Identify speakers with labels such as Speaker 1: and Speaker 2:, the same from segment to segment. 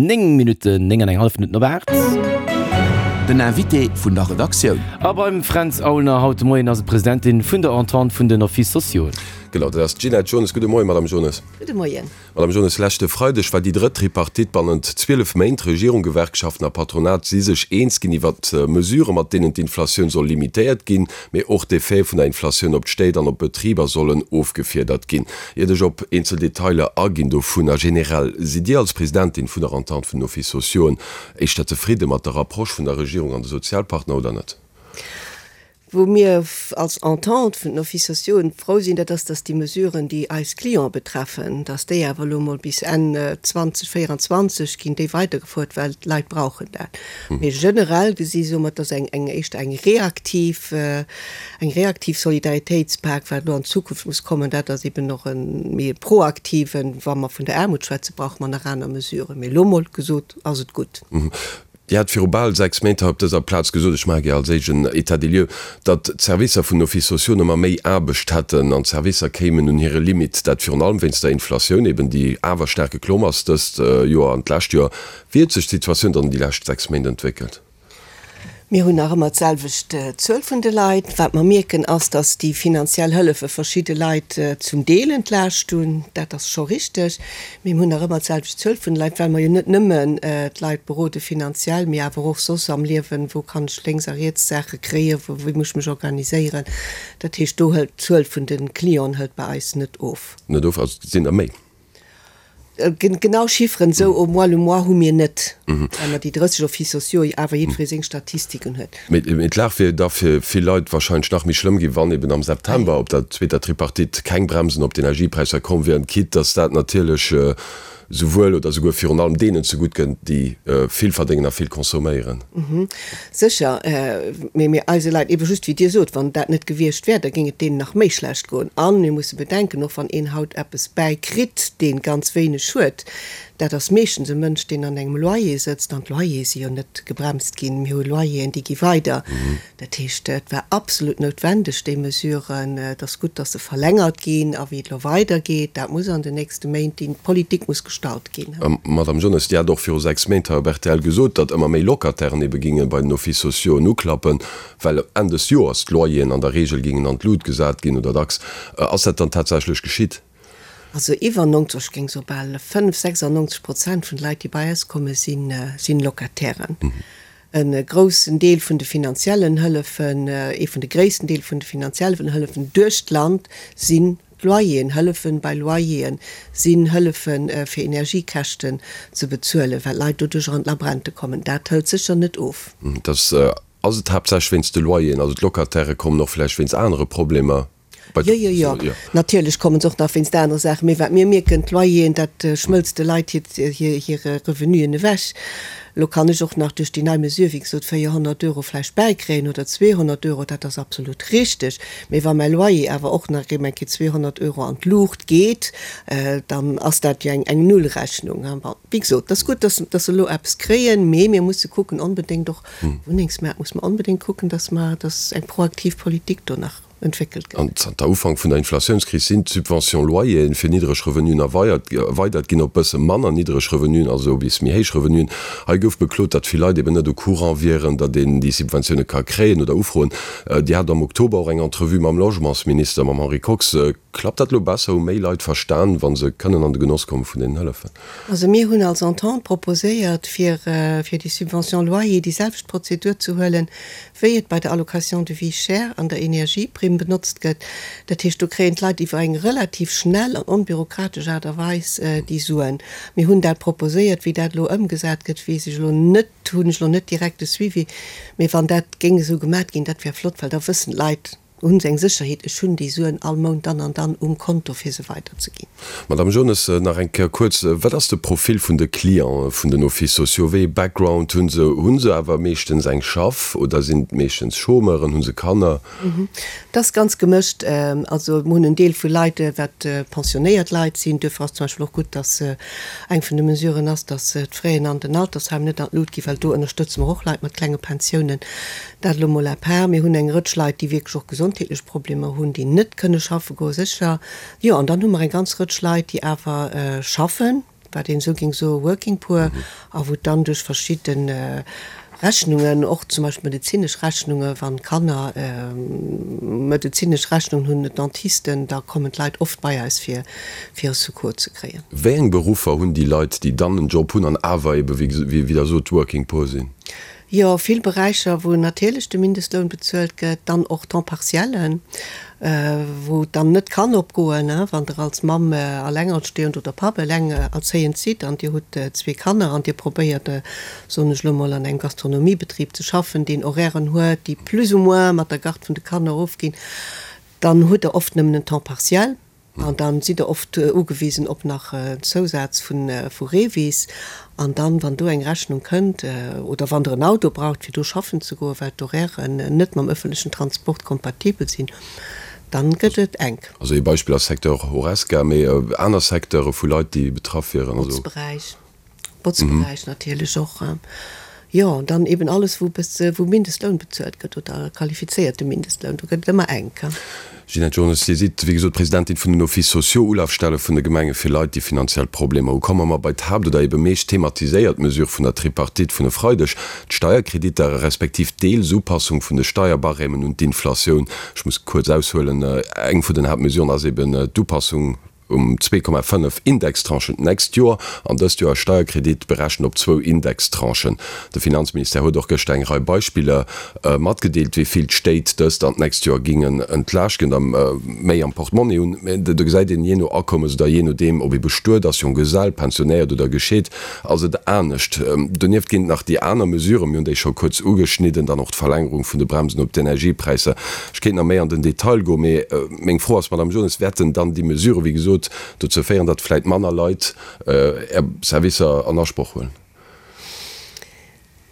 Speaker 1: 9 Minutten, 9 an eng hallef Minutten op 8.
Speaker 2: Den Invité vun der Redaktioun.
Speaker 1: A beim Fränz Aulner haut de Moien ass et d'Presidentin vun der Entente vun den Offices sociaux.
Speaker 3: Genau, dat ass d'Ginette Jones. Gudde Moien, Madame Jones.
Speaker 4: Gudde Moien.
Speaker 3: Madame Jones, leschte Freideg war déi drëtt Tripartite bannent 12 Méint. Regierung, Gewerkschaften a Patronat si sech eens ginn iwwert Mesuren, mat deenen d'Inflatioun soll limitéiert ginn, mee och d'Effete vun der Inflatioun op d'Stéit an op d'Betriber sollen ofgefiedert ginn. Iert ech op eenzel Detailer aginn dovunner, generell, sidd Dir als Presidentin vun der Entente vun den Offices sociauxen éischter zefridde mat der Approche vun der Regierung an de Sozialpartner oder net?
Speaker 4: Wou mir als Entente vun den Offices sociauxen frou sinn, dat ass, dass déi Mesuren, déi eis Clienten betreffen, dass déi awer elo emol bis Enn 2024 ginn déi weidergefuert, well d'Leit brauchen dat. Mee generell gesi soe mer, et ass eng eng éischter eng reaktiv, eng reaktiv Solidaritéitspak. Wat elo an Zukunft muss kommen, dat ass eben och e méi e proaktiven. Wa mer vun der Aarmut schwätzen, brauche mer nach aner Mesuren. Mee elo emol gesot ass et gutt.
Speaker 3: Dir hat viru bal 6 Méint hei op dëser Plaz gesot, ech maache gär als éischt en État des lieux, datt d'Servicer vun den Offices sociaux ëmmer méi Aarbecht hätten an d'Servicer kéimen un hire Limite, dat virun allem wéinst der Inflatioun eben, déi awer staark geklomm ass dëst Joer an d'lescht Joer. Wéi huet sech d'Situatioun dann déi lescht 6 Méint entwéckelt?
Speaker 4: Mir hunn nach ëmmer d'selwecht Zuel vun de Leit. Wat mer mierken, ass, datt déi finanziell Hëllefe verschidde Leit zum Deel entlaascht hunn. Dat ass scho richteg. Mee mir hunn nach ëmmer d'selwecht Zuel vun de Leit, well mer jo net nëmmen d'Leit berode finanziell, mee awer och soss am Liewen, wou kann ech lénks a riets Saache kréien, wou, wéi muss ech mech organiséieren. Dat heescht, do hëlt d'Zuel vun de Clienten hëlt bei eis net of.
Speaker 3: Net of, also et sinn der méi?
Speaker 4: Genau Chifferen esou au mois le mois hu mir net, well mer déi 30 Offices sociaux jo awer jiddweree seng Statistiken huet.
Speaker 3: Mee d'Lag wier da fir vill Leit wahrscheinlech nach méi schlëmm ginn, wann eben am September op der zweeter Tripartite keng Bremsen op d'Energiepräisser komm wieren, quitte datt dat natierlech souwuel oder souguer virun allem deenen zegutt kënnt, déi vill verdéngen a vill consomméieren.
Speaker 4: Sécher, mee mir eise Leit, ebe just wéi Dir sot, wann dat net gewiescht wär, da géing et deenen nach méi schlecht goen. A mir musse bedenken, och wann een haut eppes bäikritt, dee ganz wéineg huet, dat ass meeschtens e Mënsch, deen an engem Loyer sëtzt, an d'Loyere si jo net gebremst ginn, mir hu Loyeren, déi gi weider. Dat heescht, et war absolut noutwendeg, déi Mesuren. Et ass gutt, dass se verlängert ginn. A wéi et elo weidergeet, dat muss an den nächste Méint, déi Politik muss gestalt ginn.
Speaker 3: Madamm Jones, Dir hat och viru 6 Méint hei op rtl gesot, datt ëmmer méi Locatairen ebe ginge bei den Offices sociauxen uklappen, well Enn des Joers d'Loyeren an der Reegel gingen an d'Lut gesat ginn oder dacks. Ass dat dann tatsächlech geschitt?
Speaker 4: Also iwwer 90, ech géing soe bal 5, 96 Prozent vun de Leit, déi bei eis kommen, si Locatairen. E groussen Deel vun de finanziellen Hëllefen, ee vun de gréissten Deel vun de finanziellen Hëllefen duerch d'Land sinn d'Loyeren, Hëllefen bei Loyeren sinn Hëllefe fir Energiekäschten ze bezuelen, well d'Leit doduercher an d'Labrente kommen. Dat hëlt sécher net of.
Speaker 3: Dass ass et haaptsächlech wéinst de Loyeren, also d'Locatairë kommen och vläicht wéinst anere Problemer.
Speaker 4: Jo, jo, jo, natierlech kommen se och nach wéinst anere Saachen. Mee wat mir mierken, d'Loyeren, dat schmëlzt de Leit hir Revenuen ewech. Elo kann ech och nach duerch déi nei Mesure, wéi gesot, 400 Euro vläicht bäikréien oder 200 Euro, dat ass absolut richteg. Mee wa mäi Loyer awer och nach erém eng Kéier 200 Euro an d'Luucht geet, dann ass dat jo eng Nullrechnung. Bon, wéi gesot, et ass gutt, dass se elo eppes kréien, mee mir musse kucken onbedéngt och, Wunnengsmaart muss mer onbedéngt kucken, dass mer, dass eng proaktiv Politik do nach entwéckelt gëtt.
Speaker 3: An zanter Ufank vun der Inflatiounskris sinn d'Subvention Loyeren fir niddreg Revenuen erweidert ginn op bësse manner niddreg Revenuen, also bis méi héich Revenuen. Hei gouf beklot, datt vill Leit eben net au courant wieren, datt een déi Subventioune ka kréien oder ufroen. Dir hat am Oktober och eng Entrevue mam Logementsminister, mam Henri Kox. Klappt dat elo besser? Hu méi Leit verstan, wa se kënnen an de Genoss komme vun deenen Hëllefen?
Speaker 4: Also mir hunn als Entente proposéiert, fir fir déi Subvention loyer déi selwecht Prozedur ze huelen, wéi et bei der Allocation de vie chère an der Energieprimm benotzt gëtt. Dat heescht, do kréien d'Leit iwwer eng relativ schnell an onbürokratesch Aart a Weis déi Suen. Mir hunn dat proposéiert. Wéi dat elo ëmgesat gëtt, weess ech elo net, hunn ech elo net direkt de Suivi. Mee wann dat géing esou gemat ginn, dat wär flott, well da wëssen d'Leit, Hunn se eng Sécherheet, ech hunn déi Suen all Mount dann an dann um Konto fir se weiderzeginn.
Speaker 3: Madame Jones, nach eng Kéier kuerz, Wat ass de Profil vun de Clientë vun den Offices sociaux? Wéi ee Background hu se? Hu se awer meeschtens eng Schaff oder sinn et meeschtens Chômeuren? Hu se Kanner?
Speaker 4: Et ass ganz gemëscht. Also mir hunn en Deel vu Leit, wat pensionéiert Leit sinn. Duerfir ass zum Beispill och gutt, datt eng vun de Mesuren ass, datt d'Fraisen an den Altersheim net an d'Lut ginn, well do ënnerstëtze mer och Leit mat klenge Pensiounen. Dat elo mol à part. Mir hunn eng Rëtsch Leit, déi wierklech och gesondheetlech Problemer hunn, déi net kënne schaffe goen, sécher. Jo, an dann hu mer eng ganz Rëtsch Leit, déi awer schaffen. wat een esou géing soe Working Poor, a wou dann duerch verschidde Rechnungen, och zum Beispill medezinesch Rechnungen, wann Kanner medezinesch Rechnungen hunn, Dentisten, da kommen d'Leit oft bei eis fir fir e Secours ze kréien.
Speaker 3: Wéi eng Beruffer hunn déi Leit, déi dann en Job hunn an awer ebe wéi Der sot Working Poor sinn?
Speaker 4: Jo, vill Beräicher, wou natierlech de Mindestloun bezuelt gëtt, dann och Temps partiellen, wou et dann net kann opgoen, wann Der als Mamm alengerstehend oder Papp elengerzéiend sidd an Dir hutt zwee Kanner an Dir probéiert, soen ech elo mol, an engem Gastronomiebetrib ze schaffen, deen Horairen huet, déi plus ou moins mat der Garde vun de Kanner ofginn, dann hutt Der oft nëmmen en Temps partiel. An dann sidd der oft ugewisen op nach en Zousaz vu Revis. An dann, wann do eng Rechnung kënnt, oder wann der en Auto braucht fir do schaffen ze goen, well d'Horairen net mam ëffentlechen Transport kompatibel sinn, dann gëtt et enk.
Speaker 3: Also ee Beispill ass Secteur Horesca, mee aner Secteure vu Leit déi betraff wieren,
Speaker 4: also. Botzberäich. Botzberäich natierlech och, jo, an dann eben alles, wou wou Mindestloun bezuelt gëtt oder qualifizéierte Mindestloun, do gëtt et ëmmer enk.
Speaker 3: Ginette Jones, Dir sidd, wéi gesot, Presidentin vun den Offices sociaux, Ulafstelle vun de Gemenge fir Leit, déi finanziell Problemer hu. Komme mer bei d'Haapt oder ebe meescht thematiséiert Mesure vun der Tripartite vun e Freideg, d'Steierkreditter, respektiv d'Deelsupassung vun de Steierbarêmen un d'Inflatioun. Ech muss kuerz aushuelen, Eng vun den Haaptmesuren ass eben d'Upassung, um 2,5 Indextranchen d'nächst Joer an dëst Joer e Steierkredit berechent op zwou Indextranchen. De Finanzministère huet och gëschter eng Rei Beispiller matgedeelt, wéi vill d'Stéit dëst an d'nächst Joer gingen entlaaschten a méi am Portmonni hunn. Mä do gesäit een, jee no Akommes oder jee nodeem, ob ee bestuet ass, Jonggesell, pensionéiert oder gescheet, ass et anescht. Donieft ginn et nach déi aner Mesuren, mir hunn déi scho kuerz ugeschnidden, dann och d'Verlängerung vun de Bremsen op d'Energiepräisser. Ech kéint nach méi an den Detail goen, mee meng Fro ass, Madame Jones, wäerten dann déi Mesuren, wéi gesot, dozou féieren, datt vläicht manner Leit Är Servicer an Asproch huelen?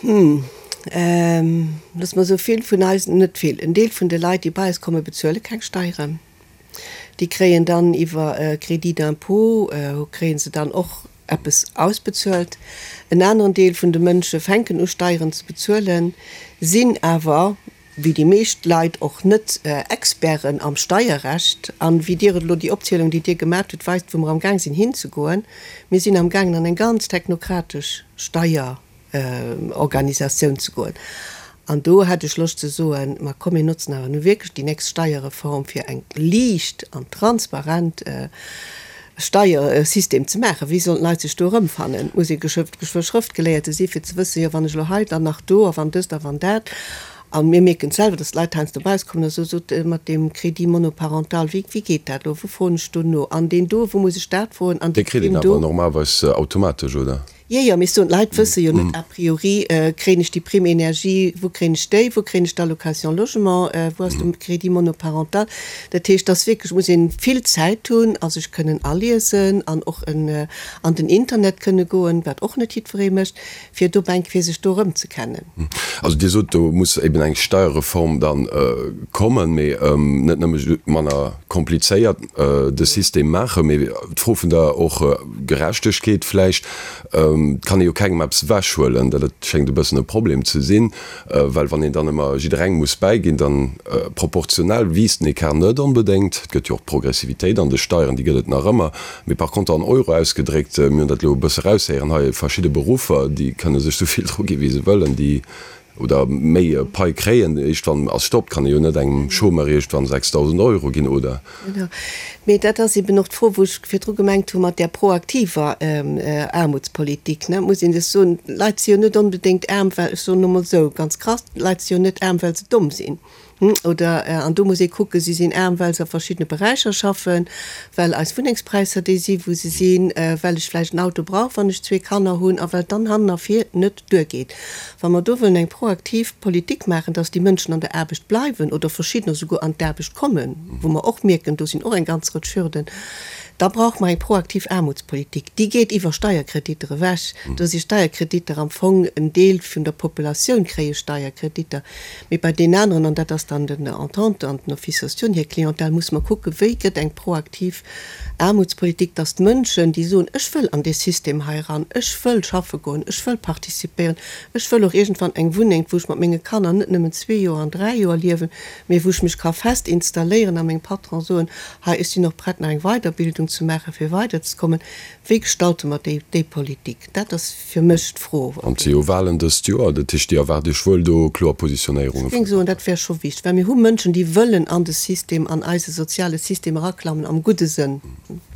Speaker 4: Hm, loosse mer soe vill vun eis, net vill, en Deel vun de Leit, déi bei eis kommen, bezuele keng Steieren. Déi kréien dann iwwer e Crédit d'impôt, kréie se dann och eppes ausbezuelt. En aneren Deel vun de Mënsche fänken u Steieren ze bezuelen, sinn awer, wéi déi meescht Leit, och net Experten am Steierrecht. An wéi Dir et elo, déi Opzielung, déi Dir gemat hutt, weist, wou mer amgaang sinn hinzegoen. Mir sinn amgaangen an eng ganz technokratesch Steier. Organisatioun ze goen. An do hätt ech Loscht ze soen, ma komm mir notzen awer nu wierklech déi nächst Steierreform fir eng liicht an transparent Steiersystem ze maachen. Wéi sollen d'Leit sech do erëmfannen? Et muss ee geschwë Schrëftgeléierte si fir ze wëssen, jo wann ech elo hei, dann nach do a wann dëst a wann dat. A mir mierken et selwer, datt d'Leit heiansdo bei eis kommen a soen, sot mat deem Crédit monoparental, wéi wéi geet dat elo, wou froen ech do no an deen do, wou muss ech dat froen an
Speaker 3: déi Dee kritt een
Speaker 4: Primm do.
Speaker 3: awer normalerweis automatesch, oder?
Speaker 4: Jo, jo, mee ech soen, d'Leit wësse jo net a priori, kréien ech déi Prime énergie, wou kréien ech déi, wou kréien ech d'Allocation logement, wou ass de Crédit monoparental. Dat heescht, dass wierklech muss ee vill Zäit hunn a sech kënnen aliesen an och an den Internet kënne goen, wat och net jiddweree mécht, fir dobäi eng Kéier sech do erëmzekennen.
Speaker 3: Also Dir sot, do muss eben eng Steierreform da kommen, mee net nëmme manner komplizéiert de System maachen, mee d'Fro vun der och Gerechtegkeet vläicht, Et kann ee jo kengem eppes ewechhuelen, dat schéngt e bëssen e Problem ze sinn, well wann een dann ëmmer jidderengem muss bäiginn, dann proportionell wiisst den Ecart net onbedéngt. Et gëtt jo och d'Progressivitéit an de Steieren, déi gëtt et nach ëmmer, mee par contre an Euro ausgedréckt, mir hunn dat elo e bësse eraushéieren hei, verschidde Beruffer, déi kënne sech esou vill dru gi wéi se wëllen, déi Oder méi Pai kréien. Iergendwann ass Stopp. Kann ee jo net engem Chômeur iergendwann 6.000 Euro ginn, oder?
Speaker 4: Genau. Mee dat ass eben och d'Fro, wou ech virdru gemengt hu mat där proaktiver Aarmutspolitik, ne. Et muss een sech soen, d'Leit si jo net onbedéngt aarm, well, ech soen elo mol esou ganz krass, d'Leit si jo net aarm, well se domm sinn. Oder, an do muss ee kucken, si sinn aarm, well se a verschiddene Beräicher schaffen, well eis Wunnengspräisser déi si wou se sinn, well ech vläicht en Auto brauch, wann ech zwee Kanner hunn, a well et dann hannen a vir net duergeet. Wa mer do wëllen eng proaktiv Politik maachen, dass déi Mënschen an der Aarbecht bleiwen oder verschiddener souguer an d'Aarbecht kommen, wou mer och mierken, do sinn och eng ganz Rëtsch Hürden, da brauche mer eng proaktiv Aarmutspolitik. Déi geet iwwer Steierkreditter ewech. Do si Steierkreditter am Fong, en Deel vun der Populatioun kréie Steierkreditter. Mee bei deenen aneren, an dat ass dann den Entente an den Offices sociaux hir Clientèle, musse mer kucken, wéi gëtt eng proaktiv Aarmutspolitik, dass d'Mënschen, déi soen, ech wëll an dee System hei eran, ech wëll schaffe goen, ech wëll participéieren, ech wëll och iergendwann eng Wunneng, wou ech mat menge Kanner net nëmmen zwee Joer an dräi Joer liewen, mee wou ech mech ka fest installéieren a mengem Patron soen, hei, ech sinn och prett nach eng Weiderbildung. ze maachen, fir weiderzekommen. Wéi gestalte mer déi, déi Politik? Dat ass fir mech d'Fro.
Speaker 3: An et si jo Wahlen dëst Joer, dat heescht, Dir erwaart Iech wuel do kloer Positionéierunge
Speaker 4: Ech géing
Speaker 3: vun.
Speaker 4: soen, dat wär scho wichteg, well mir hu Mënschen, déi wëllen an de System, an eise soziale System eraklammen, am gudde Sënn.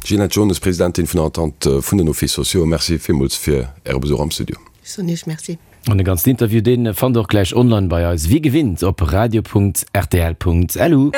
Speaker 3: Ginette Jones, Presidentin vun der Entente vun den Offices sociaux, Merci villmools fir Äre Besuch am Studio.
Speaker 4: Ech soen Iech Merci.
Speaker 1: An de ganzen Interview, dee fannt der och gläich online bei eis, wéi gewinnt op radio.rtl.lu.